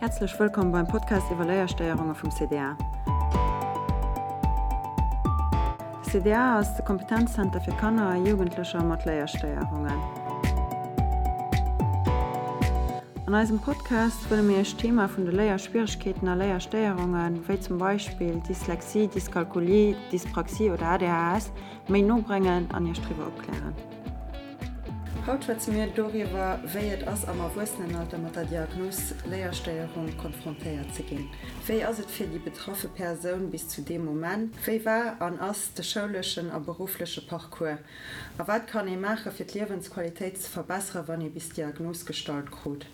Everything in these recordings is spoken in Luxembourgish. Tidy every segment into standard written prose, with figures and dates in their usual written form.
Häerzlech wëllkomm beim Podcast iwwer Léierstéierunge vum CDA. De CDA ass de Kompetenzzenter fir Kanner a Jugendlecher mat Léierstéierungen. An eisem Podcast wëlle mir Iech d'Thema vun de Léierschwieregkeeten a Léierstéierungen, wéi zum Beispill Dyslexie, Dyskalkulie, Dyspraxie oder ADHS, méi no bréngen an Iech driwwer opklären. Haut schwätze mir doriwwer, wéi et ass am Erwuessenenalter mat der Diagnos Léierstéierung konfrontéiert ze ginn. Wéi ass et fir déi betraffe Persoun bis zu deem Moment? Wéi war an ass de schouleschen a beruffleche Parcours? A wat kann ee maache fir d'Liewensqualitéit ze verbessere wann ee bis d'Diagnos gestallt krut?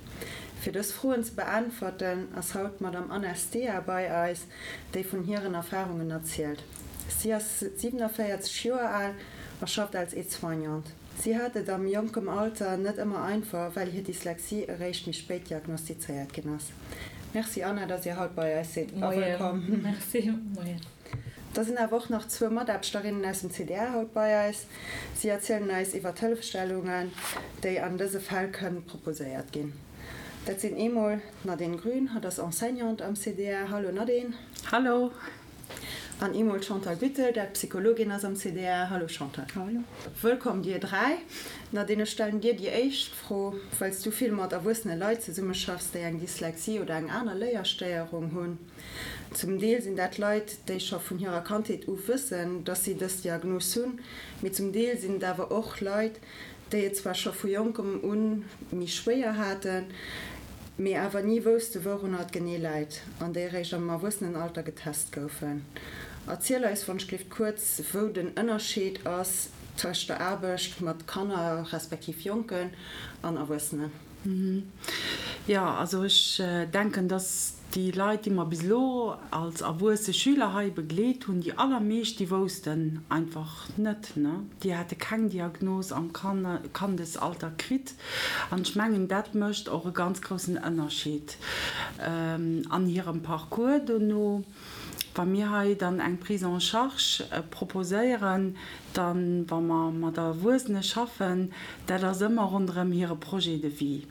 Fir dës Froen ze beäntwerten, ass haut d'Madame Anna Stea bei eis, déi vun hiren Erfarungen erzielt. Si ass 47 Joer al a schafft als Aide-soignante. Si hat et am jonkem Alter net ëmmer einfach, well hir Dyslexie eréischt méi spéit diagnostizéiert ginn ass. Merci Anna, dass Dir haut bei eis sidd a wëllkomm. Merci, moien. Da sinn awer och nach zwou Mataarbechterinnen aus dem CDA haut bei eis. Si erzielen eis iwwer d'Hëllefstellungen, déi an dëse Fäll kënnen proposéiert ginn. Dat sinn eemol d'Nadine Grün, hatt ass Enseignante am CDA. Hallo Nadine. Hallo. An eemol d'Chantal Büttel, dat Psychologin ass am CDA. Hallo Chantal. Hallo. Wëllkomm dir dräi. Nadine, ech stellen dir déi éischt Fro, well s du vill mat erwuessene Leit zesummeschaffs, déi eng Dyslexie oder eng aner Léierstéierung hunn. Zum Deel sinn dat Leit, déi scho vun hirer Kandheet u wëssen, dass si dës Diagnos hunn, mee zum Deel sinn et awer och Leit, déi et zwar scho vu jonkem u méi schwéier haten, mee awer ni wousste wourunner et genee läit an déi eréischt am Erwuessenenalter getest goufen. Erziel eis wonschglift kuerz, wou den Ënnerscheed ass tëscht der Aarbecht mat Kanner respektiv Jonken an Erwuessenen. Jo, also ech denken, dass déi Leit, déi mer bis elo als erwuesse Schüler hei begleet hunn, déi allermeescht, déi woussten einfach net, ne? Déi hate keng Diagnos am Kandesalter kritt. An ech mengen, dat mécht och e ganz groussen Ënnerscheed an hirem Parcours dono. Wa mir hei dann eng Prise en charge proposéieren, dann, wa mer mat Erwuessene schaffen, dat ass ëmmer ronderëm hire Projet de vie.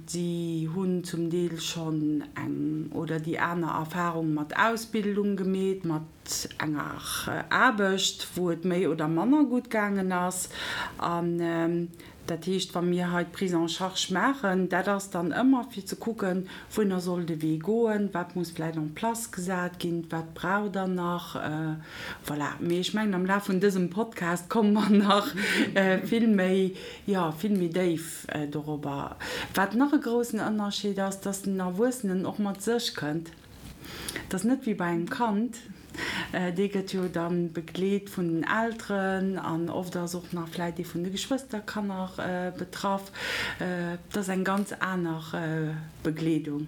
Si hunn zum Deel schonn eng oder déi aner Erfahrung mat Ausbildung gemeet, mat enger Aarbecht, wou et méi oder manner gutt gaangen ass. An Dat heescht, wa mir hei d'Prise en charge maachen, dat ass dann ëmmer fir ze kucken, wouhinner soll de Wee goen, wat muss vläicht en place gesat ginn, wat braucht Der nach. Voilà. Mee ech mengen, am Laf vun dësem Podcast komme mer nach vill méi, jo, vill méi déif dorobber. Wat nach e groussen Ënnerscheed ass, dass den Erwuessenen och mat sech kënnt. Et ass net wéi bei engem Kand, dee gëtt jo da begleet vun den Elteren an oft ass och nach vläit ee vun de Geschwësterkanner betraff. Et ass eng ganz aner Begleedung.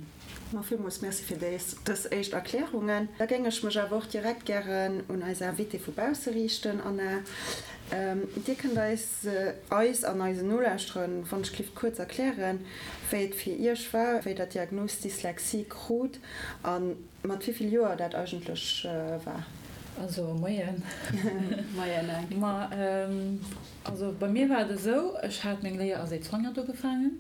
Ma villmools Merci fir dës éischt Erklärungen. Da géing ech mech awer och direkt gären un eis Invitée vu bausse riichten. Anna, Dir kënnt eis, eis an eisen Nolauschterern, wann ech giff, kuerz erklären, wéi et fir Iech war, wéi Der d'Diagnos Dyslexie krut a mat wéi vill Joer dat eigentlech war. Also, Moien. Moien, Anke. Ma also bei mir war et esou, ech hat meng Léier als Aide-soignante ugefaangen.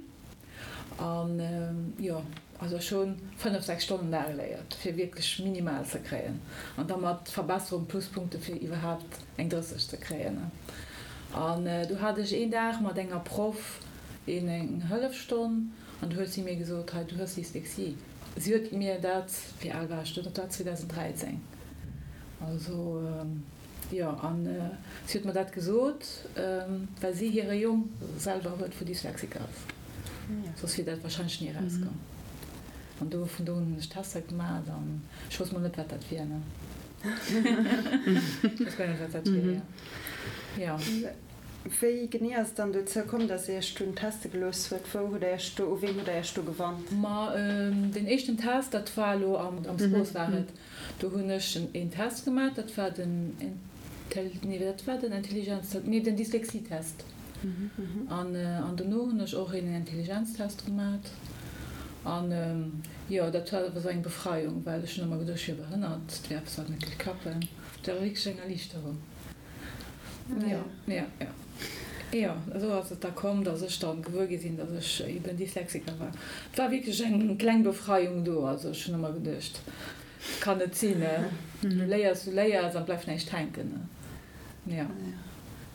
An jo, also ech hu 5, 6 Stonnen da geléiert, fir wierklech minimal ze kréien. An da mat Verbesserung, Pluspunkte fir iwwerhaapt eng 30 ze kréien. An du hat ech een Dag mat enger Proff een eng Hëllefstonn an du huet si mir gesot, hei du hues Dyslexie. Si huet mir dat, wéi al war ech do, dat war 2013, also. Jo, an si huet mer dat gesot, well si hire Jong selwer huet, wou Dyslexiker ass. Soss wier dat warscheinlech ni erauskomm. An do, vun do un hunn ech Tester gemaat an ech wousst mol net, wat dat wier, ne. Ech wousst guer net, wat dat wier, jo. Jo. Wéi genee ass et dann dozou komm, datt Dir Iech dunn teste gelooss huet? Wou hutt Der Iech do, u ween hutt Der Iech do gewannt? Ma deen éischten Test, dat war elo am Sport war et. Do hunn ech een Test gemaach, dat war den Intel, nee dat war den Intelligenztest, nee den Dyslexietest. An an dono hunn ech och een Intelligenztest gemaach. An jo, dat war awer sou eng Befreiung, well ech hunn ëmmer geduecht, ech wier behënnert, et wier eppes wat net géif klappen. Dat war wierklech eng Erliichterung. Jo, jo, jo. Jo, esou ass et da komm, dass ech dann gewuer gi sinn, dass ech eben Dyslexiker war. Et war wierklech eng kleng Befreiung do. Also ech hunn ëmmer geduecht, et kann net sinn, du léiers, du léiers an et bleift näischt hänken. Jo.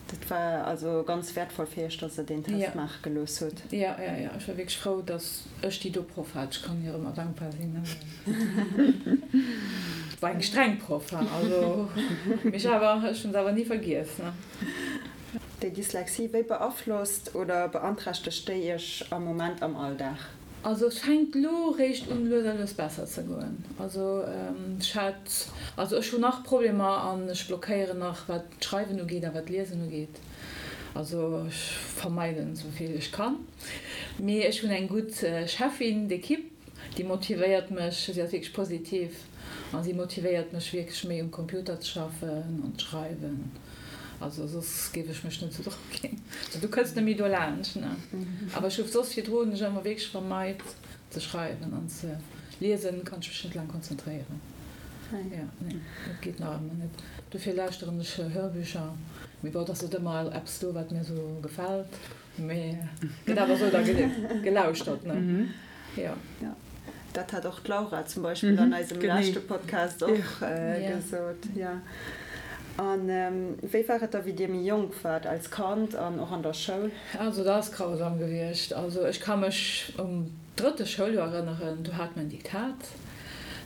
Dat war also ganz wäertvoll fir Iech, dass Der deen Test maache gelooss hutt. Jo, jo, jo. Ech war wierklech frou, dass ech déi do Proff hat. Ech kann hir ëmmer dankbar sinn. Et war eng streng Proff, also, mee ech awer, ech hunn se awer ni vergiess. Déi Dyslexie, wéi beaflosst oder beanträchtegt déi Iech am Moment am Alldag? Also et fänkt lo réischt un lues a lues besser ze goen. Also ech hat, also ech hunn nach Problemer an ech blockéieren nach wat d'Schreiwen ugeet a wat d'Liesen ugeet. Also ech vermeiden esou vill ech kann. Mee ech hunn eng gutt Cheffin d'équipe, déi motivéiert mech, si ass wierklech positiv a si motivéiert mech wierklech méi um Computer ze schaffen an ze schreiwen. Also soss géif ech mech net sou drop ginn. Also du kënns net méi dolaanscht, ne? Awer ech hu soss virdru hunn ech ëmmer wierklech vermeit ze schreiwen an ze liesen, kann ech mech net laang konzentréieren. Jo, nee, dat geet nach ëmmer net. Dofir lauschteren ech Hörbücher. Mee bon, et ass net ëmmer eppes do, wat mir sou gefält. Mee gëtt awer sou da gelauschtert, ne? Jo. Dat hat och d'Laura zum Beispill an eisem leschte Podcast och gesot. Jo. A wéi war et da, wéi Dir méi jonk waart, als Kand an och an der Schoul? Also dat ass grausam gewiescht. Also ech ka mech um drëtte Schouljoer erënneren, do hate mer en Diktat,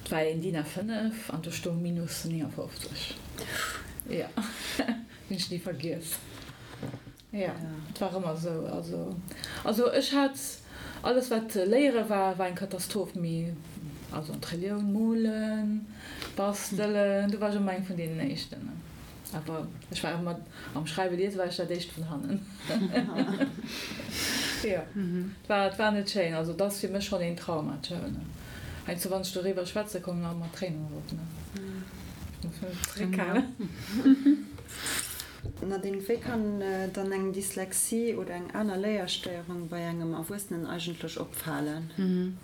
et war een DIN A5 an do stoung minus 59. Jo, hunn ech ni vergiess. Jo, et war ëmmer esou. Also, also ech hat alles wat léiere war, war eng Katastroph, mee also an d'Relioun, molen, bastelen, do war ech ëmmer eng vun deenen éischten. Awer ech war ëmmer am Schreiwe liese war ech dat éischt vun hannen. Jo, et war, et war net schéin. Also et ass fir mech schonn een Trauma, d'Schoul. Heiansdo wann ech doriwwer schwätze kommen mer ëmmer d'Tréinen erop, ne. Ech muss mech zeréckhalen. Nadine, wéi kann dann eng Dyslexie oder eng aner Léierstéierung bei engem Erwuessenen eigentlech opfalen?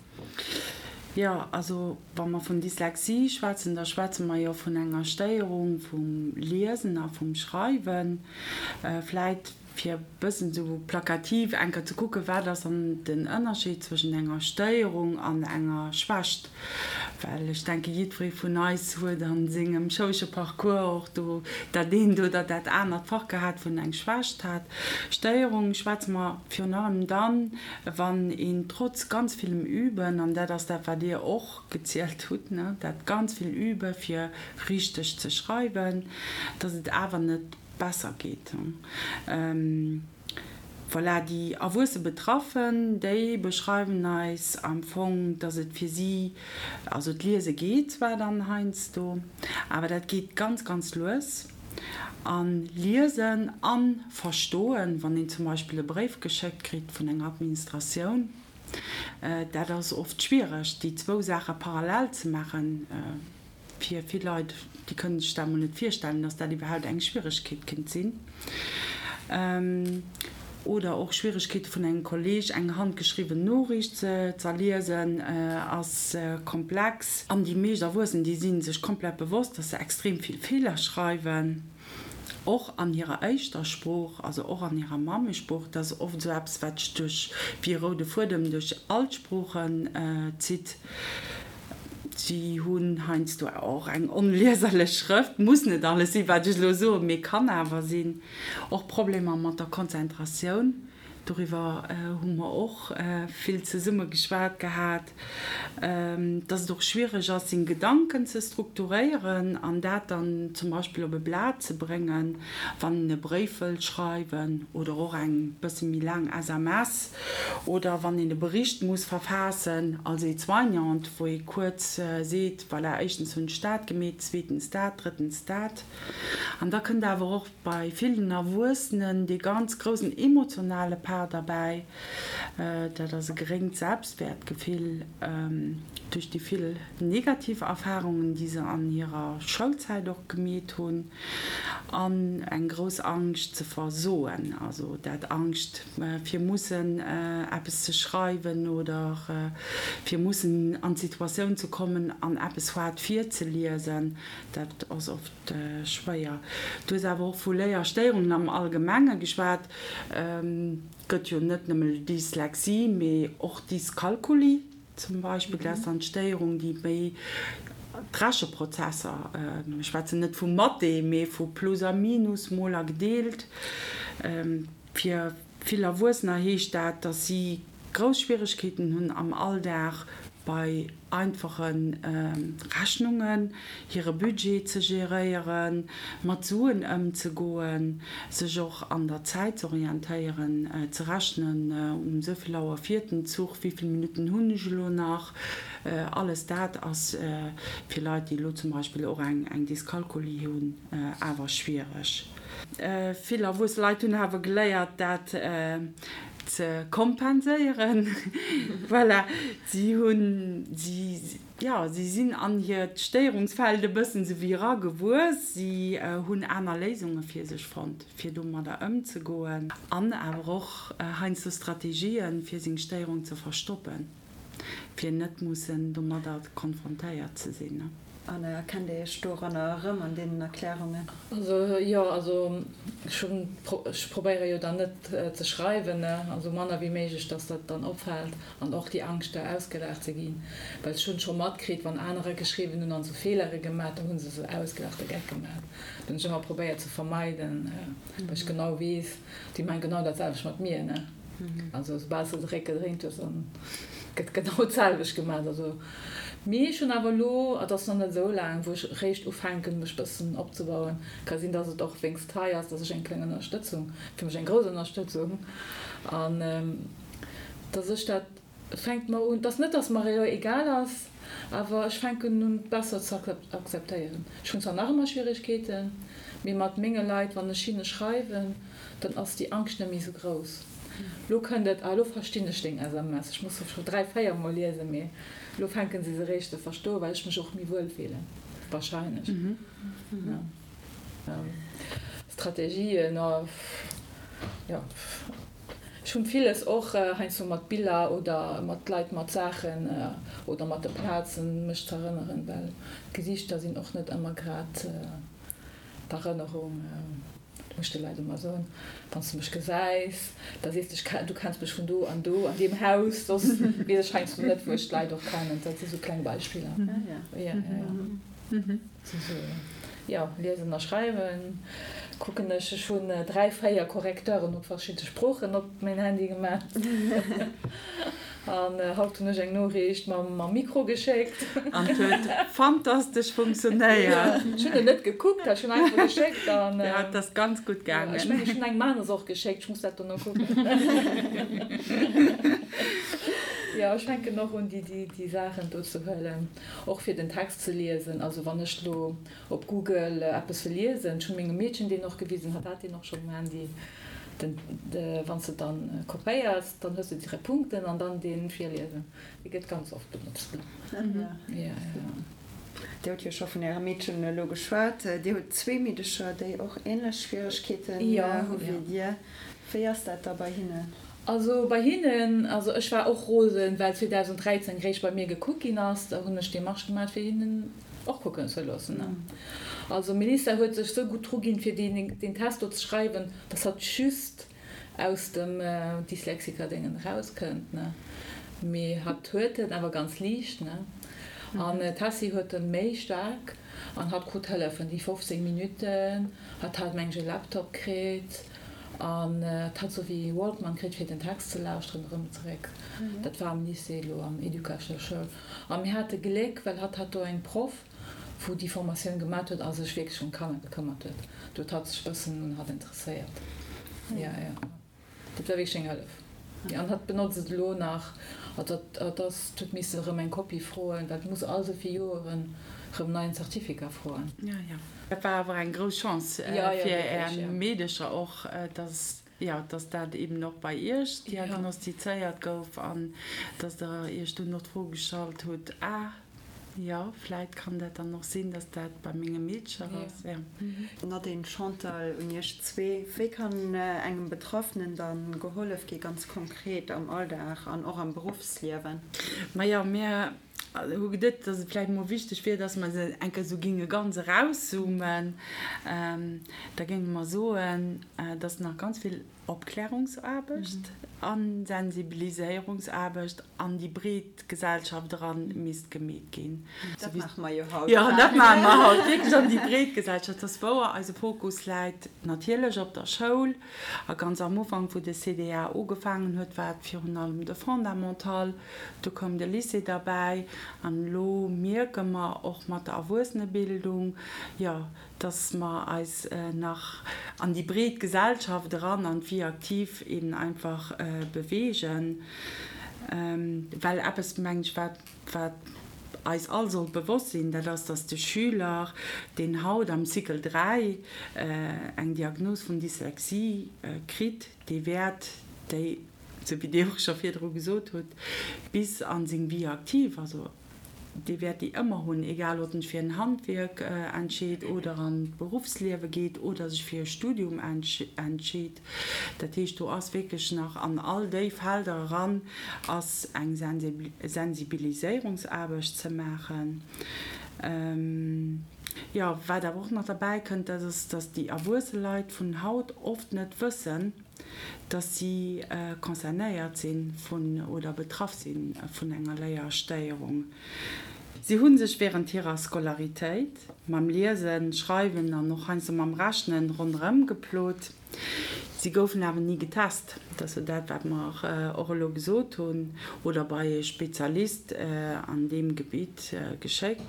Jo, also wa mer vun Dyslexie schwätzen, da schwätze mer jo vun enger Stéierung vum Liesen a vum Schreiwen. Vläit fir e bëssen esou plakativ eng Kéier ze kucken, wat ass dann den Ënnerscheed zwëschent enger Stéierung an enger Schwächt? Well ech denke jiddweree vun eis huet a sengem schoulesche Parcours och do dat eent oder dat anert Fach gehat, wou en eng Schwächt hat. Stéierung schwätze mer virun allem dann, wann een trotz ganz villem Üben, an dat ass dat wat Dir och gezielt hutt, ne, dat ganz vill Übe fir richteg ze schreiwen, datt et awer net besser geet. Voilà, déi erwuesse Betraffen, déi beschreiwen eis am Fong, dass et fir si, also d'Liese geet zwar dann heiansdo, awer dat geet ganz, ganz lues. A liesen a verstoen, wann een zum Beispill e Bréif geschéckt kritt vun enger Administratioun, dat ass oft schwiereg, déi zwou Saache parallel ze maachen. Fir vill Leit, déi kënnen sech dat emol net virstellen, dass dat iwwerhaupt eng Schwieregkeet kéint sinn. Oder och Schwieregkeete vun engem Kolleeg eng handgeschriwwen Noriicht ze z'erliesen, ass komplex. An déi meescht Erwuessen, déi si sech komplett bewosst, dass se extrem vill Feeler schreiwen, och an hirer éischter Sprooch, also och an hirer Mammesprooch. Dat ass oft esou eppes, wat sech duerch, wéi e roude Fuedem duerch all d'Sproochen zitt. Si hunn heiansdo och eng onlieserlech Schrëft, muss net alles sinn, wat ech elo soen, mee kann awer sinn. Och Problemer mat der Konzentratioun, doriwwer hu mer och vill zesumme geschwat gehat, dass et och schwiereg ass, seng Gedanken ze strukturéieren an dat dann zum Beispill op e Blat ze bréngen, wann een e Bréif wëllt schreiwen oder och eng bësse méi laang SMS. Oder wann een e Bericht muss verfaassen als Aide-soignante, wou ee kuerz seet, voilà, éischtens hunn ech dat gemeet, zweetens dat, drëttens dat. An da kënnt awer och bei villen Erwuessenen dee ganz groussen emotionale Part derbäi, dat ass e geréngt Selbstwäertgefill duerch déi vill negativ Erfarungen, déi se an hirer Schoulzäit och gemeet hunn, an eng grouss Angscht ze versoen, also dat Angscht, fir mussen. eppes ze schreiwen oder fir mussen an d'Situatioun ze kommen an eppes haart virzeliesen, dat ass oft schwéier. Du hues awer och vu Léierstéierungen am Allgemenge geschwat. Et gëtt jo net nëmme Dyslexie, mee och Dyskalkulie zum Beispill. Dat ass dann d'Stéierung, déi méi d'Recheprozesser, mir schwätzen net vu Mathé, mee vu Plus a Minus, Mol a Gedeelt. Fir vill Erwuessener heescht dat, dass si grouss Schwieregkeeten hunn am Alldag bei einfache Rechnungen, hire Budget ze geréieren, mat Suen ëmzegoen, sech och an der Zäit z'orientéieren, ze rechnen, um esou vill Auer fiert den Zuch, wéi vill Minutten hunn ech elo nach. Alles dat ass fir Leit, déi elo zum Beispill och eng Dyskalkulie hunn, awer schwiereg. Vill erwuesse Leit hunn awer geléiert, dat ze kompenséieren. Voilà, si hunn, si, jo, si sinn an hiert Stéierungsfeld e bëssen esou wéi eragewuess. Si hunn aner Léisunge fir sech fonnt, fir domadder ëmzegoen an awer och heiansdo Strategien, fir seng Stéierung ze verstoppen. Fir net mussen domadder konfrontéiert ze sinn. An erkennt Dir Iech doranner erëm, an deenen Erklärungen? Also jo, also ech hunn, ech probéiere jo dann net ze schreiwen, ne, also manner wéi méiglech, dass dat dann opfält an och déi Angscht da ausgelaacht ze ginn, well ech hunn scho matkritt, wann anerer geschriwwen hunn an sou Feelere gemat, da hu se se ausgelaacht a Geck gemat. Dat hunn ech ëmmer probéiert ze vermeiden, well ech genau weess, déi maachen genau dat selwecht mat mir, ne. Also soubal s de de Réck gedréint hues, dann gëtt genau d'selwecht gemaach. Also, mee ech hunn awer elo, et ass nach net esou laang, wou ech eréischt ufänken, mech bëssen opzebauen. Ka sinn, dass et och wéinst hei ass, dass ech eng kleng Ënnerstëtzung, fir mech eng grouss Ënnerstëtzung, an dass ech dat, Et fänkt mer un, et ass net, dass mer elo egal ass, awer ech fänken un et besser ze akzeptéieren. Ech hunn zwar nach ëmmer Schwieregkeeten, mee mat menge Leit, wann ech hinne schreiwen, dann ass déi Angscht net méi esou grouss. Lo kënnt et, ah lo verstinn ech deng SMS, ech muss se scho 3, 4 mol liesen, mee lo fänke se se eréischt ze verstoen, well ech mech och méi wuel fillen, wahrscheinlech. Strategien, jo. Ech hunn villes och heiansdo mat Biller oder mat Leit, mat Saachen oder mat de Plazen mech z'erënneren, well d'Gesiichter sinn och net ëmmer grad d'Erënnerung. Dat muss ech de Leit ëmmer soen, Wann s de mech gesäis, da sees de, ech du kenns mech vun do an do an deem Haus, soss weess ech heiansdo net, wou ech d'Leit och kennen. Dat si sou kleng Beispiller. Jo, liesen a schreiwen kucken ech. Ech hunn 3, 4 Correcteuren op verschidde Sproochen op mäin Handy gemaach. An haut hunn ech eng Noriicht mam Mikro geschéckt. An et huet fantastesch funktionéiert. Ech hunn et net gekuckt, ech hunn einfach geschéckt an. Jo, et ass ganz gutt gaangen. Ech mengen, ech hunn engem aneres och geschéckt, ech muss dat dono kucken. Jo, ech fänken och un, déi Saachen do ze huelen. Och fir den Text ze liesen, also wann ech lo op Google eppes wëll liesen, ech hunn mengem Meedchen deen och gewisen, hatt hat deen och schonn um Handy, den, wann s de dann kopéiers, dann hues de direkt Punkten an dann deen virliesen, dee gëtt ganz oft benotzt. Jo, jo. Dir hutt jo scho vun Ärem Meedchen elo geschwat. Dir hutt zwee Meedecher, déi och änlech Schwieregkeeten hu wéi Dir. Wéi ass dat da bei hinnen? Also bei hinnen, also ech war och rosen, well 2013 réischt bei mir gekuckt ginn ass, da hunn ech Demarche gemat fir hinnen och kucken ze loossen. Also Melissa huet sech sou gutt dru ginn fir deen Test do ze schreiwen, dass hatt just aus dem Dyslexiker-Déngen erauskënnt, ne. Mee hatt huet en awer ganz liicht, ne. An d'Tessy huet en méi staark an hatt krut Hëllefen, déi 15 Minutten, hatt hat meng ech e Laptop kritt. An et hat sou wéi Walkman kritt fir den Text ze lauschteren erëm zeréck. Dat war am Lycée elo am Educatioun. A mir hate Gléck, well hatt hat do eng Proff, wou déi Formatioun gemat huet a sech wierklech ëm d'Kanner gekëmmert huet. Do huet hatt sech bëssen un hatt interesséiert. Jo, jo. Dat war wierklech eng Hëllef. Jo, an hatt benotzt et elo nach. Also hatt ass, huet misse erëm eng Kopie froen, well et muss all sou vill Joeren erëm neien Certificat froen. Jo, jo. Dat war awer eng grouss Chance fir Är Meedecher och, dass, jo, dass dat eben och bei Iech diagnostizéiert gouf an dass Der Iech dunn och d'Fro gestallt hutt, Ah, Jo, vläit kann dat dann och sinn, dass dat bei menge Meedcher ass, jo. Nadine, Chantal, un iech zwee, Wéi kann engem Betraffenen dann gehollef gi ganz konkret am Alldag an och am Beruffsliewen? Majo, mir hu geduet, dass et vläicht mol wichteg wier, dass mer se eng Kéier esou géinge ganz erauszoomen. Da géinge mer soen, dass nach ganz vill Opklärungsaarbecht a Sensibiliséierungsaarbecht an déi breet Gesellschaft eran misst gemeet ginn. Dat maache mer jo haut. Jo, dat maache mer haut wierklech an déi breet Gesellschaft. Dat ass wouer, eise Fokus läit natierlech op der Schoul. A ganz am Ufank, wou de CDA ugefaangen huet, war et virun allem de Fondamental. Du koum de Lycée derbäi. An elo mierke mer och mat der Erwuessenebildung, jo, dass mer eis nach an déi breet Gesellschaft eran, an d'Vie active eben einfach bewegen, well eppes, mengen ech, wat, wat eis all sollt bewosst sinn, dat ass, dass de Schüler, deen haut am Cycle 3 eng Diagnos vun Dyslexie kritt, dee wäert déi, esou wéi Dir och scho virdru gesot hutt, bis a seng Vie active, also dee wäert déi ëmmer hunn, egal ob en sech fir en Handwierk entscheet oder an d'Beruffsliewe geet oder sech fir e Studium entscheet. Dat heescht, do ass wierklech nach an all déi Felder eran ass eng Sensibiliséierungsaarbecht ze maachen. Jo, wat awer och nach derbäi kënnt, dat ass, datt déi erwuesse Leit vun haut oft net wëssen, dass si concernéiert si vun oder betraff si vun enger Léierstéierung. Si hu sech wärend hirer Scolaritéit mam Liesen, Schreiwen an och heiansdo mam Rechnen ronderëm geplot. Si goufen awer ni getest, dat ass jo dat, wat mer och elo gesot hunn, oder bei e Spezialist an deem Gebitt geschéckt.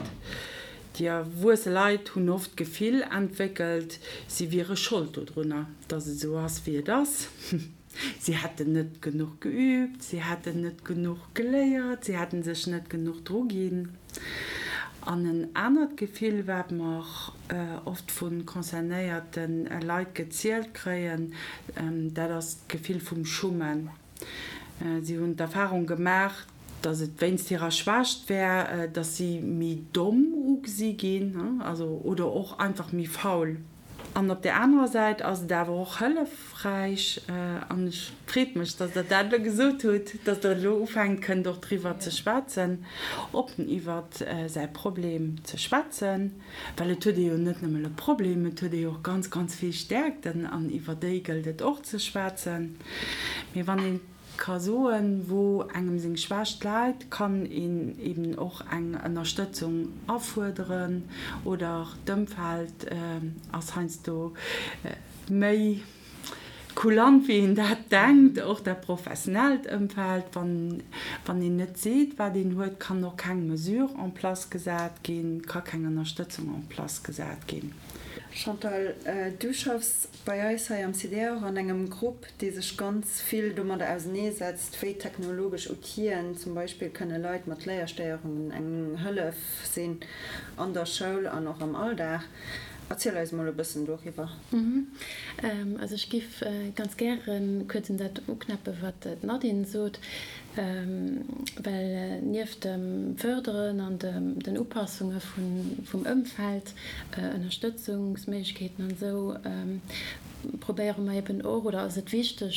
Déi erwuesse Leit hunn oft d'Gefill entwéckelt, si wiere Schold dodrunner, dass et esou ass, wéi et ass. Si hätten net genuch geüübt, si hätten net genuch geléiert, si hätten sech net genuch druginn. An en anert Gefill, wat mer oft vu concernéierte Leit gezielt kréien, dat ass d'Gefill vum Schummen. Si hunn d'Erfarung gemaach, datt et wéinst hirer Schwächt wär, datt si méi domm ugesi ginn, also oder och einfach méi faul. An op där anerer Säit ass et awer och hëllefräich, an ech freet mech, datt Der dat elo gesot hutt, datt Der elo ufänkt kënnt och driwwer ze schwätzen, oppen iwwer säi Problem ze schwätzen, well et huet ee jo net nëmmen e Problem, et huet ee jo och ganz, ganz vill Stäerkten an iwwer déi gëllt et och ze schwätzen. Mee wann ee ka soen, wou engem seng Schwächt läit, kann een eben och eng Ënnerstëtzung afuerderen oder d'Ëmfeld ass heiansdo méi kulant, wéi een dat denkt, och dat professionellt Ëmfeld. Wann wann een net seet, wat een huet, kann och keng Mesure en place gesat ginn, ka keng Ënnerstëtzung en place gesat ginn. Chantal, du schaffs bei eis hei am CDR och an engem Grupp, dee sech ganz vill domadder auseneesetzt, wéi technologesch Outiller zum Beispill kënne Leit mat Léierstéierungen eng Hëllef sinn an der Schoul an och am Alldag. Erziel eis mol e bëssen doriwwer. Also ech giff ganz gäre kuerz un dat uknäppe wat d'Nadine sot, well nieft dem Fërderen an den Upassunge vum Ëmfeld, Ënnerstëtzungsméiglechkeeten an esou, probéiere mer eben och, oder ass et wichteg,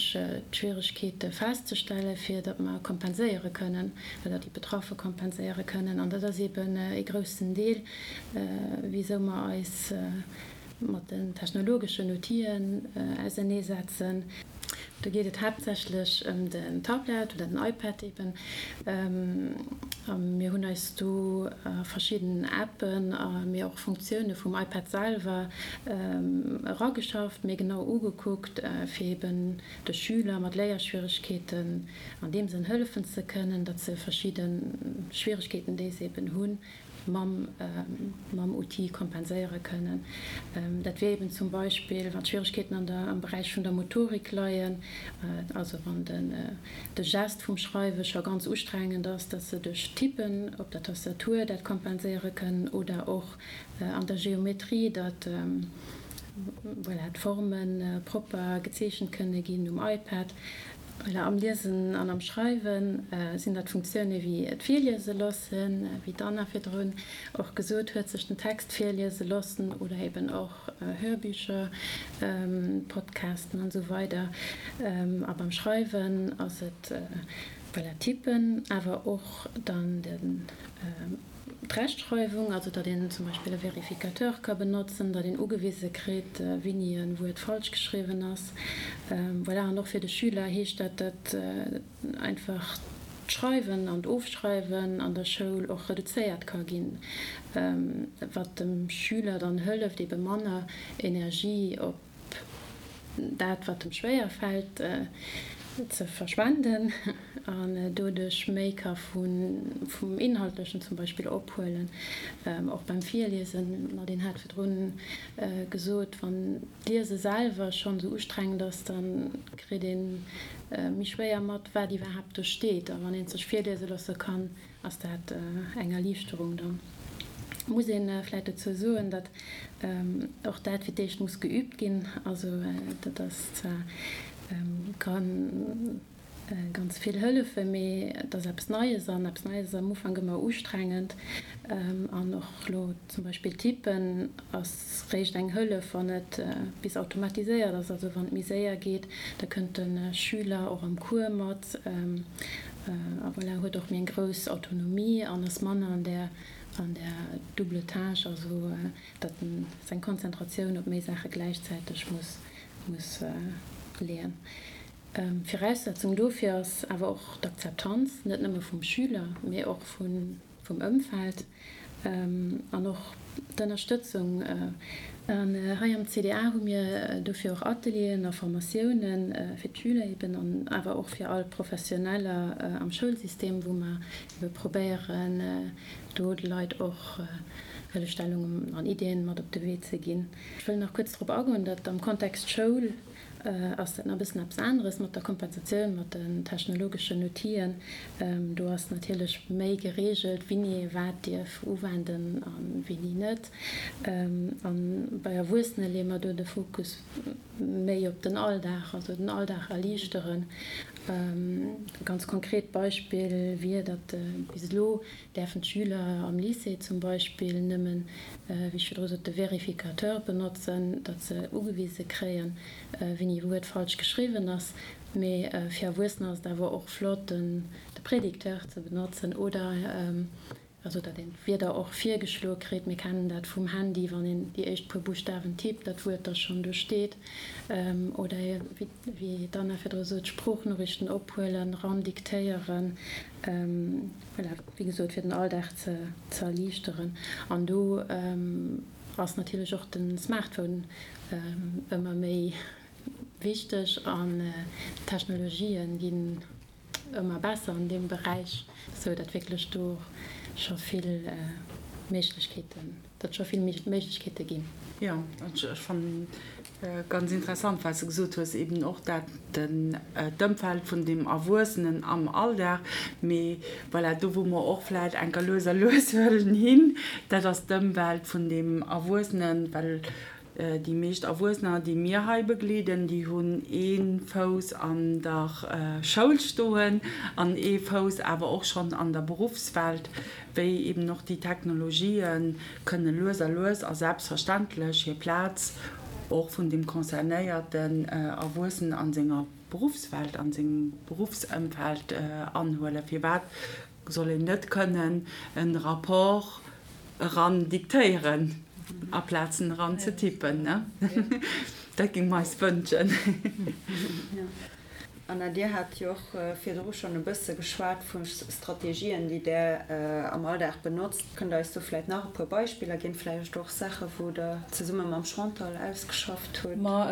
d'Schwieregkeete festzestellen, fir datt mer kompenséiere kënnen oder déi Betraffe kompenséiere kënnen. An dat ass eben ee groussen Deel, wisou mer eis mat den technologeschen Outiller auserneesetzen. Do geet et haaptsächlech ëm den Tablet oder den iPad eben. A mir hunn eis do verschidden Appen a mee och Funktioune vum iPad selwer erageschafft, méi genau ugekuckt, fir eben de Schüler mat Léierschwieregkeeten an deem Sënn hëllefen ze kënnen, datt se verschidde Schwieregkeeten, déi se eben hunn, mam mam Outil kompenséiere kënnen. Dat wier eben zum Beispill, wann d'Schwieregkeeten an der am Beräich vun der Motorik leien, also wann den de Gest vum Schreiwe scho ganz ustrengend ass, dass se duerch Tippen op der Tastatur dat kompenséiere kënnen oder och an der Geometrie, datt voilà d'Forme propper gezeechent kënne ginn um iPad. Voilà, am Liesen an am Schreiwe sinn dat Funktioune wéi d'Virliese loossen, wéi d'Anna virdrun och gesot huet, sech den Text virliese loossen oder eben och Hörbücher, Podcasten an esou weider. A beim Schreiwen ass et, voilà, Tippen, awer och dann den. D'Rechtschreiwung, also datt een zum Beispill e Vérificateur ka benotzen, datt een ugewise kritt, wéini e Wuert falsch geschriwwen ass. Voilà, an och fir de Schüler heescht dat, datt einfach d'Schreiwen an d'Ofschreiwen an der Schoul och reduzéiert ka ginn, wat dem Schüler dann hëlleft, ebe manner Energie op dat wat em schwéier fält ze verschwenden an doduerch méi ka vum Inhaltlechen zum Beispill ophuelen. Och beim Virliesen, Nadine hat virdrun gesot, wann d'Liese selwer schonn esou ustrengend ass, da kritt ee méi schwéier mat, wat iwwerhaapt do steet. A wann ee sech virliese loosse kann, Ass dat eng Erliichterung? Da muss ee vläicht dozou soen, datt och dat fir d'éischt muss geübt ginn. Also dat ass zwar, ka ganz vill hëllefen, mee et ass eppes Neies an eppes Neies ass am Ufank ëmmer ustrengend. An och elo zum Beispill Tippen ass réischt eng Hëllef, wann et bis automatiséiert ass, also wann et méi séier geet. Da kënnt de Schüler och am Cours mat. A voilà, huet och méi eng grouss Autonomie an ass manner an där, an där double tâche, also datt en seng Konzentratioun op méi Saache gläichzäiteg muss, muss leeën. Viraussetzung dofir ass awer och d'Akzeptanz, net nëmme vum Schüler, mee och vun, vum Ëmfeld an och d'Ënnerstëtzung. An hei am CDA hu mir dofir och Atelieren a Formatioune fir d'Schüler eben an awer och fir all Professioneller am Schoulsystem, wou mer ebe probéieren, do de Leit och Hëllefstellungen an Iddien mat op de Wee ze ginn. Ech wëll nach kuerz drop agoen, datt am Kontext Schoul ass dat nach e bëssen eppes aneres mat der Kompensatioun, mat den technologeschen Outill'en. Do ass natierlech méi gereegelt, wini ee wat dierf uwenden a wini net. A bei Erwuessene leeë mer do de Fokus méi op den Alldag, also den Alldag erliichteren. E ganz konkret Beispill wier, datt bis elo däerfen d'Schüler am Lycée zum Beispill nëmmen, wéi ech virdru sot, de Vérificateur benotzen, datt se ugewise kréien, wéini e Wuert falsch geschriwwen ass. Mee fir Erwuessener ass et awer och flott, de Prédicteur ze benotzen oder also datt een d'Wierder och virgeschloe kritt. Mir kennen dat vum Handy, wann een déi éischt puer Buschtawen tippt, datt d'Wuert da schonn do steet. Oder wéi d'Anna virdru sot, Sproochnoriichten ophuelen, ran diktéieren. Voilà, wéi gesot, fir den Alldag ze erliichteren. An do ass natierlech och de Smartphone ëmmer méi wichteg an d'Technologien ginn ëmmer besser an deem Beräich, sou datt wierklech do scho vill Méiglechkeeten, datt scho vill Méiglechkeete ginn. Jo, ech fannen ganz interessant, wat s de gesot hues, eben och dat den d'Ëmfeld vun dem Erwuessenen am Alldag. Mee voilà, do wou mer och vläicht enker lues a lues wëllen hin, dat ass d'Ëmwelt vun dem Erwuessenen, well Déi meescht Erwuessener, déi mir hei begleeden, déi hunn ee Fouss an der Schoul stoen an ee Fouss awer och schonn an der Beruffswelt, wéi eben och déi Technologië kënne lues a lues a selbstverständlech hir Plaz och vun deem concernéierten Erwuessenen a senger Beruffswelt, a sengem Beruffsëmfeld anhuelen. Firwat soll een net kënnen e Rapport eran diktéieren aplaz en eran ze tippen, ne? Dat géinge mer eis wënschen. Anna, Dir hat jo och virdru schonn e bësse geschwat vu Strategien, déi Der am Alldag benotzt. Kënnt Der eis do vläicht nach e puer Beispiller ginn, vläicht och Saache wou Der zesumme mam Chantal ausgeschafft hutt? Ma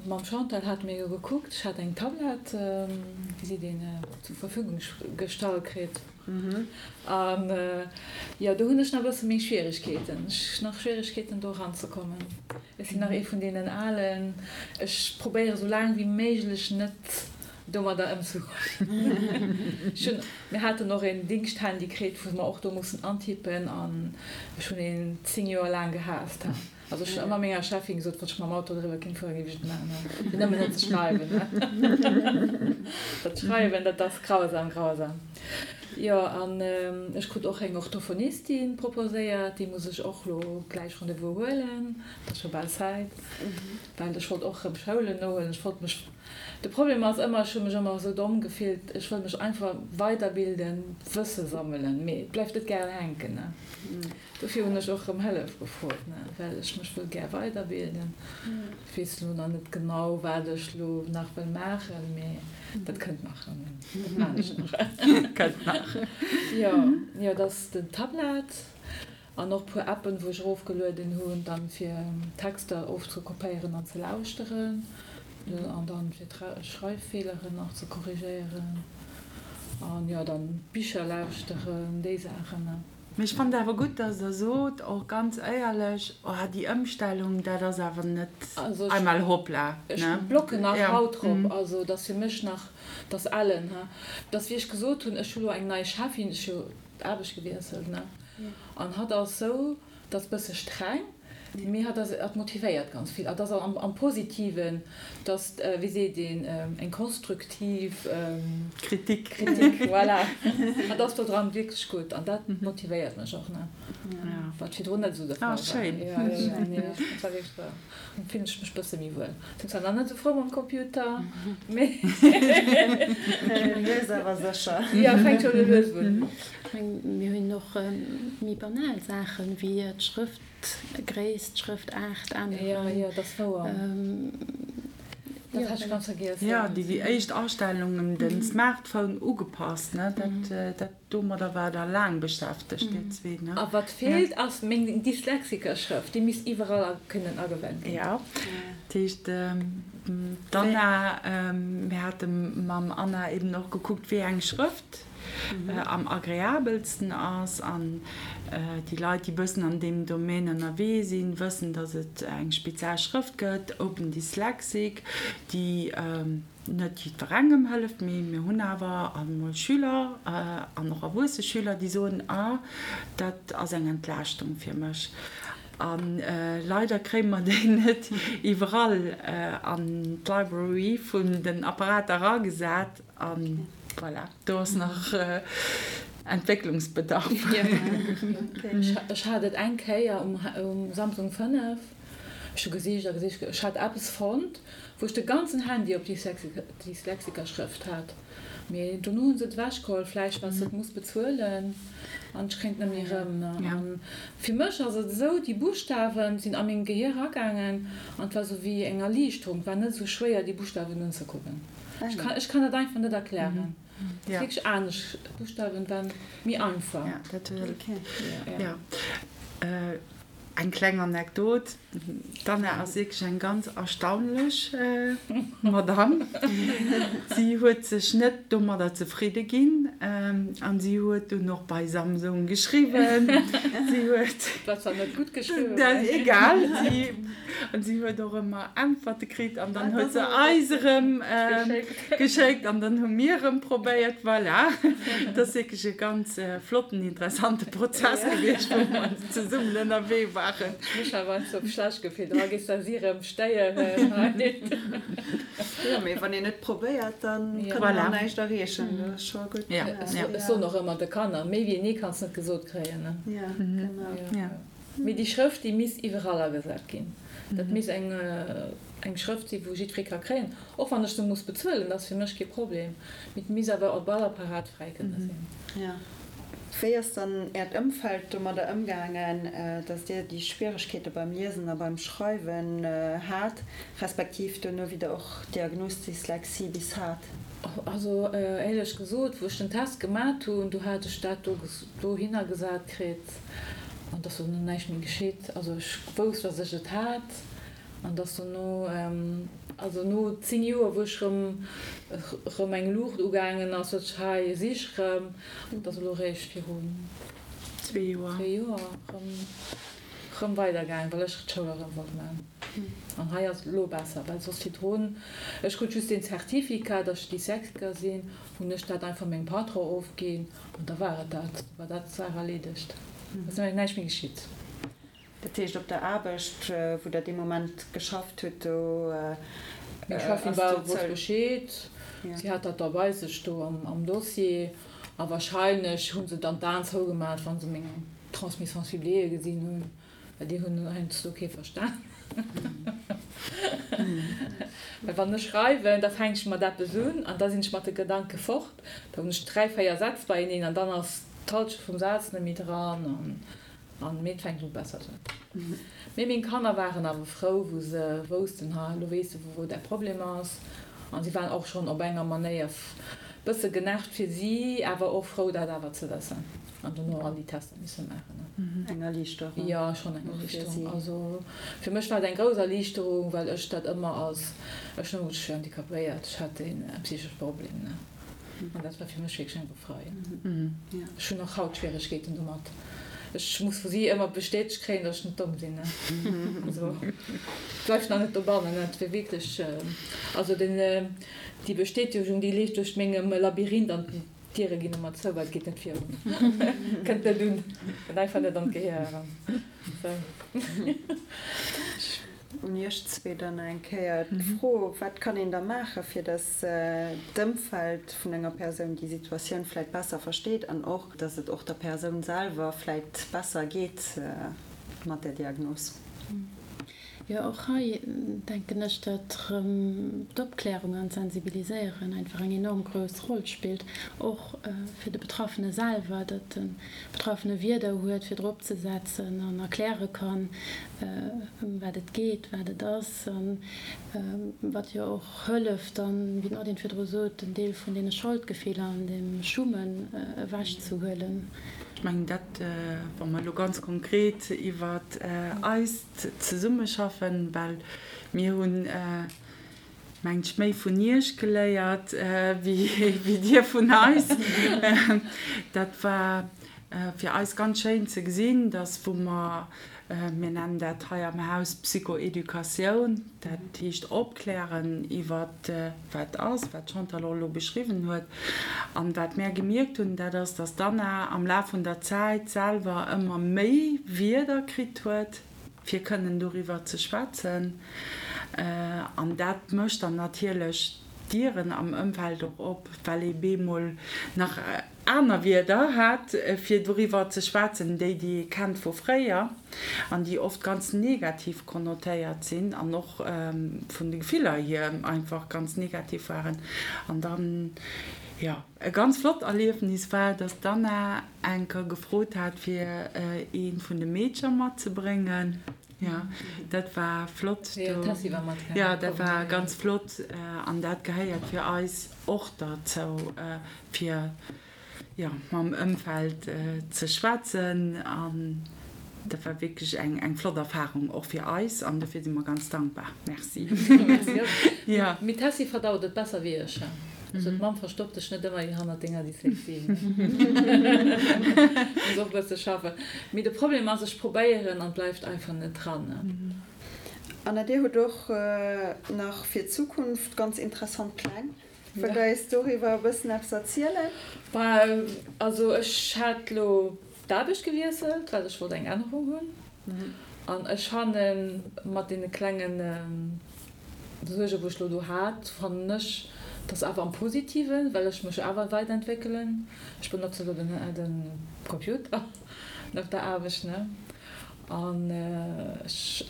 mam Chantal hate mir jo gekuckt, ech hat eng Tablett, wéi seet een, zur Verfügung gestallt kritt. An jo, do hunn ech nach e bësse méi Schwieregkeeten. Ech nach Schwieregkeeten do eranzekommen. Ech sinn nach ee vun deenen Alen, ech probéiere sou laang wéi méiglech net domadder ëmzegoen. Ech hunn, mir haten och een Dingschthandy kritt, wou mer och do mussen antippen an ech hunn een 10 Joer laang gehaasst. Also ech hunn ëmmer menger Cheffin gesot, wann ech mam Auto driwwer kéint fueren, géif ech et maachen, fir nëmmen net ze schreiwen. Dat Schreiwen, dat ass grausam, grausam. Jo, an ech krut och eng Orthophonistin proposéiert, déi muss ech och lo gläich Rendez-vous huelen, et ass scho bal Zäit, well ech wollt och erëm Schoulen nohuelen. Ech wollt mech, de Problem ass ëmmer, ech hu mech ëmmer esou domm gefillt, ech wëll mech einfach weiderbilden, Wësse sammelen, mee et bleift net gären hänken, ne. Dofir hunn ech och rëm Hëllef gefrot, ne, well ech mech wëll gär weiderbilden. Ech weess elo nach net genau, wat ech elo nach wëll maachen, mee dat kënnt nach. Dat maan ech nach. Kënnt nach. Jo, jo, dat ass den Tablet an och puer Appen, wou ech erofgelueden hunn, dann fir Texter ofzekopéieren an ze lauschteren an dann fir Schreiffeeleren nach ze korrigéieren an jo, dann Bicher lauschteren, déi Saachen, ne. Mee ech fannen et awer gutt, dass Der sot, och ganz éierlech, oh déi Ëmstellung, dat ass awer net einmal hoppla, ne? Ech blocken nach haut drop, also et ass fir mech nach, et ass ellen, he. Et ass wéi ech gesot hunn, ech hu lo eng nei Cheffin, ech hu d'Aarbecht gewiesselt, ne, an hatt ass sou, dat ass bësse streng, Mee hatt ass, hatt motivéiert ganz vill. Hatt ass am, am Positiven, dass, wéi seet een, eng konstruktiv Kritik. Kritik, voilà. Hatt ass do dran wierklech gutt an dat motivéiert mech och, ne? Wat virdrun net esou de Fall war. Ah, schéin. Jo, jo, jo, nee, dat war wierklech wahr. Dann fillen ech mech bësse méi wuel. Sinn zwar nach net esou frou mam Computer, mee. Lues awer sécher. Jo, fänkt scho lues un. Ech mengen, mir hunn och méi banal Saachen, wéi d'Schrëft. Gréisst, Schrëftaart änneren. Jo, jo, dat ass wouer. Dat hat ech ganz vergiess. Jo, déi éischt Astellungen, den Smartphone ugepasst, ne, dat, dat, domadder waart der laang beschäftegt, dir zwee, ne? A wat feelt, ass meng Dyslexikerschrëft. Déi misst iwwerall kënnen agewennt ginn. Jo, dat heescht, d'Anna, mir hate mam Anna eben och gekuckt, wéi eng Schrëft am agreabelsten ass. An déi Leit, déi bëssen an deem Domaine ënnerwee sinn, wëssen, datt et eng speziell Schrëft gëtt, Open Dyslexic, déi net jiddwerengem hëlleft, mee mir hunn awer emol Schüler an och erwuesse Schüler, déi soen, Ah, dat ass eng Entlaaschtung fir mech. A leider kréie mer déi net iwwerall an d'Library vun den Apparater eragesat. A voilà, do ass nach Entwécklungsbedarf. Ech hat et eng Kéier um Samsung 5, ech hu gesicht a gesicht, ech hat eppes fonnt, wou ech de ganzen Handy op Dyslexikerschrëft hat, mee dono hu se et ewechgeholl, vläicht well s de et muss bezuelen an ech kréint net méi erëm. An fir mech ass et esou, déi Buschtawen sinn a mengem Gehier eragaangen an et war esou wéi eng Erliichterung, et war net esou schwéier déi Buschtawen unzekucken. Ech kann, ech kann dat einfach net erklären. Et ass wierklech anescht. D'Buschtawen waren méi einfach. Ja, dat ja. Eng kleng Anekdot, D'Anna ass wierklech eng ganz erstaunlech Madame. Si huet sech net domadder zefridde ginn an si huet dunn och bei Samsung geschriwwen. Si huet. War zwar net gutt geschriwwen. Egal. Si An si huet och ëmmer Äntwerte kritt an dann huet se eis erëm geschéckt an dann hu mir erëm probéiert. Voilà, et ass wierklech e ganz flotten, interessante Prozess gewiescht, wou mer zesummen ënnerwee waren. Ech hu mech awer heiansdo schlecht gefillt, oh gees da si erëm stéieren hei. Jo, mee wann een net probéiert, da kann een och näischt erreechen. Dat ass scho gutt. Ech soen och ëmmer de Kanner, méi wéi nee kanns net gesot kréien. Jo, genau. Mee déi Schrëft, déi misst iwwerall agesat ginn. Dat misst eng eng Schrëft sinn, wou jiddweree ka kréien, och wann ech se muss bezuelen, dat ass fir mech kee Problem. Mee et misst awer op all Apparat fräi kënne sinn. Jo. Wéi ass dann Äert Ëmfeld domadder ëmgaangen, datt Dir déi Schwieregkeete beim Liesen a beim Schreiwen hat, respektiv duerno wéi Der och d'Diagnos Dyslexie bis hat? Also éierlech gesot, wou ech den Test gemat hunn, do hat ech dat do dohinner gesat kritt. An dass dono näischt méi geschitt. Also ech wousst, dass ech et hat. An dass dono, also no 10 Joer, wou ech rëm, rëm eng Luucht ugaangen ass, sot ech, hei si ech rëm. Dat ass elo réischt virun zwee Joer, Joer rëm, rëm weidergaangen, well ech d'Schoul erëm wollt maachen. An hei ass et elo besser, well soss virdrun, ech krut just deen Certificat, dass ech Dyslexiker sinn, hunn ech dat einfach mengem Patron ofginn. An da war et dat, war dat d'Saach erleedegt. Et ass näischt méi geschitt. Dat heescht op der Aarbecht, wou Der dee Moment geschafft hutt, do Meng Cheffin war wosst Bescheed, si hat dat da bei sech do am Dossier a wahrscheinlech hu se dann d'Aen zougemat, wa se meng Transmission ciblée gesinn hunn, well déi hunn heiansdo kee verstan. Well wann ech schreiwen, da fänk ech mat eppes un an da sinn ech mat de Gedanke fort, da hunn ech 3, 4 Sätz beieneen an dann ass d'Halschent vum Saz net méi dran an An mee et fänkt un besser ze Mee meng Kanner waren awer frou wou se woussten, ha elo weess de wou däi Problem ass. An si waren och schonn op enger Manéier bësse genervt fir si, awer och frou dat awer ze wëssen an dono all déi Tester misse maachen. Eng Erliichterung. Jo, schonn eng Erliichterung. Also fir mech war et eng grouss Erliichterung, well ech dat ëmmer als, ech hunn ëmmer gesot, ech wier handicapéiert, ech hätt e psychesche Problem, ne. An dat war fir mech wierklech eng Befreiung. Ech hunn och haut Schwieregkeeten domat. Ech muss vu si ëmmer bestätegt kréien, datt ech net domm sinn. Also et bleift nach net dobannen. Et wier wierklech, also den, déi Bestätegung, déi leeft duerch mengem Labyrinth an d'Diere ginn ëmmer zou, well et geet net virun. Kënnt net un, kënnt einfach net an d'Gehier eran. Sou. Un Iech zwee dann eng Kéier d'Fro, Wat kann een da maachen, fir datt d'Ëmfeld vun enger Persoun déi Situatioun vläicht besser versteet an och, datt et och der Persoun selwer vläicht besser geet mat där Diagnos? Jo, och hei denken ech, datt erëm d'Opklärung an d'Sensibiliséieren einfach eng enorm grouss Roll spillt, och fir de Betraffene selwer, datt de Betraffene Wierder huet, fir drop ze setzen an erkläre kann, ëm wat et geet, wat et ass a wat jo och hëlleft dann, wéi d'Nadine virdru sot, en Deel vun deene Scholdgefiller an deem Schummen ewechzehuelen. Ech mengen dat, wa mer elo ganz konkret iwwer eist Zesummeschaffen, well mir hunn, mengt ech, méi vun Iech geléiert wéi Dir vun eis. Dat war fir eis ganz schéin ze gesinn, dass wou mer, mir nennen dat hei am Haus Psychoeducatioun, dat heescht opklären iwwer wat ass, wat d'Chantal och elo beschriwwen huet. An wat mär gemierkt hunn, dat ass, dass d'Anna am Laf vun der Zäit selwer ëmmer méi Wierder kritt huet, fir kënnen doriwwer ze schwätzen. An dat mécht dann natierlech d'Dieren am Ëmfeld och op, well ee bemol nach aner Wierder hat, fir doriwwer ze schwätzen, déi, déi ee kennt vu fréier an déi oft ganz negativ konnotéiert sinn an och vun de Gefiller hier einfach ganz negativ waren. An dann, jo, e ganz flott Erliefnis war, dass d'Anna enker gefrot hat, fir eent vun de Meedcher matzebréngen. Jo, dat war flott. Jo, d'Tessy war matgaangen. Jo, dat war ganz flott an dat gehéiert fir eis och derzou, fir jo mam Ëmfeld ze schwätzen an dat war wierklech eng eng flott Erfahrung och fir eis an dofir si mer ganz dankbar. Merci. Jo. Mee d'Tessy verdaut et besser wéi ech. Also d'Mamm verstoppt dech net ëmmer hannert denger Dyslexie. Muss och e bësse schaffen. Mee de Problem ass, ech probéieren an et bleift einfach net dran. Anna, Dir hutt och nach fir d'Zukunft ganz interessant Pläng. Wëllt Der eis doriwwer e bëssen eppes erzielen? Also ech hat lo d'Aarbecht gewiesselt, well ech wollt eng Ännerung hunn. An ech fannen, mat deene klenge Suergen, wou ech lo do hat, fannen ech, dass awer am Positiven, well ech mech awer weiderentwéckelen. Ech benotze lo den Computer op der Aarbecht, ne? An ech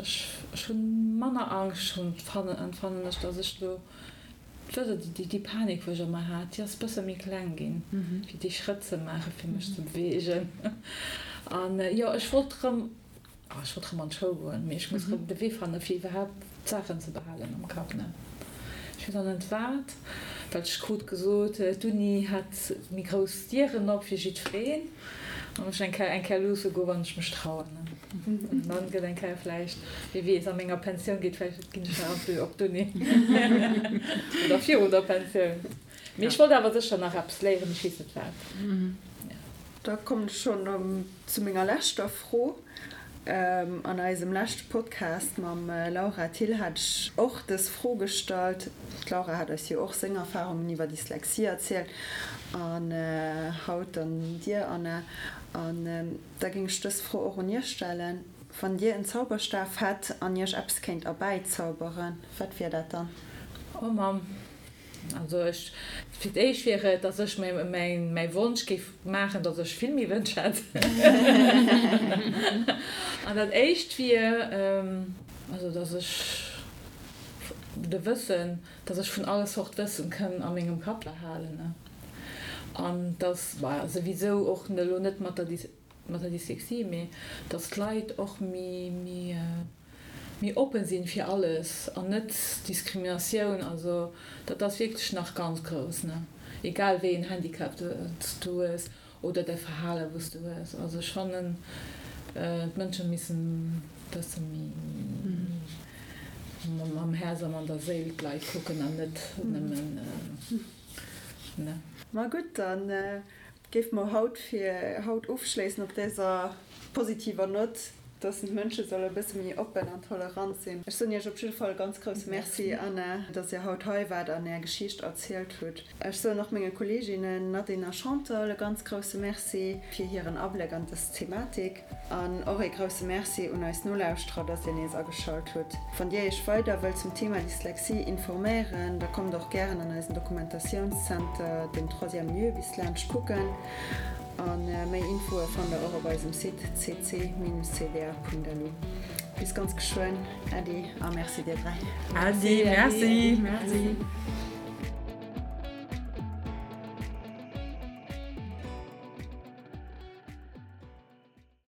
hunn manner Angscht, fannen ech, dass ech lo Wësst Der, déi Panik, wou ech ëmmer hat, déi ass e bësse méi kleng ginn, fir déi Schrëtt ze maachen, fir mech ze beweegen. An jo, ech wollt erëm, oh, ech wollt erëm an d'Schoul goen, mee ech muss erëm de Wee fannen, fir iwwerhaapt d'Saachen ze behalen am Kapp, ne. Ech weess nach net wat, well ech krut gesot, d'Uni hätt méi grouss Dieren op fir jiddwereen. An ech eng Kéier eng Kéier luusse goen, wann ech mech trauen. An dann gëtt eng Kéier vläicht, wie weess, a menger Pensioun geet vläicht, ginn ech nach op op d'Uni. Oder virun der Pensioun. Mee ech wollt awer sécher nach eppes léieren, mee ech weess net wat. Da kommen ech schonn zu menger leschter Fro. An eisem leschte Podcast mam Laura Thill hat ech och dës Fro gestallt. D'Laura hat eis jo och seng Erfarungen iwwer Dyslexie erzielt an haut dann dir, Anna. An da géing ech dës Fro och un iech stellen. Wann Dir en Zauberstaf hätt an Iech eppes kéint erbäizauberen, wat wier dat dann? Oh Mamm, also ech, fir d'éischt wier et, dass ech mäi Wonsch géif maachen, dass ech vill méi Wënsch hätt. An dat éischt wier, also dass ech de Wëssen, dass ech vun alle Sort Wëssen kënn a mengem Kapp behalen an dass, bah, souwisou och elo net mat der mat der Dyslexie, mee dass d'Leit och méi méi méi oppen sinn fir alles an net Diskriminatioun, also dat ass wierklech nach ganz grouss, ne, egal wéi een Handicap s du hues oder däi Verhale wou s du hues. Also ech fannen d'Mënsche missen bësse méi mam Häerz a mat der Séil d'Leit kucken an net nëmmen, ne. Ma gutt, dann Géife mer haut fir haut ofschléissen op däser positiver Nott, dass d'Mënsche solle e bësse méi oppen an tolerant sinn. Ech soen Iech op jidde Fall e ganz grousse Merci, Anna, dass Dir haut hei waart an Är Geschicht erzielt hutt. Ech soen och menge Kolleeginnen Nadine a Chantal e ganz grousse Merci fir hiren Abléck an dës Thematik. An och ee grousse Merci un eis Nolauschterer, dass Dir nees ageschalt hutt. Wann Dir Iech weider wëllt zum Thema Dyslexie informéieren, da kommt och gären an eisen Dokumentatiounscenter, den Troisième Lieu, bis laanscht kucken. A méi Infoe fannt der och op eisem Site cc-cda.lu. Bis ganz geschwënn. Äddi a Merci dir 3. Äddi, Merci. Merci.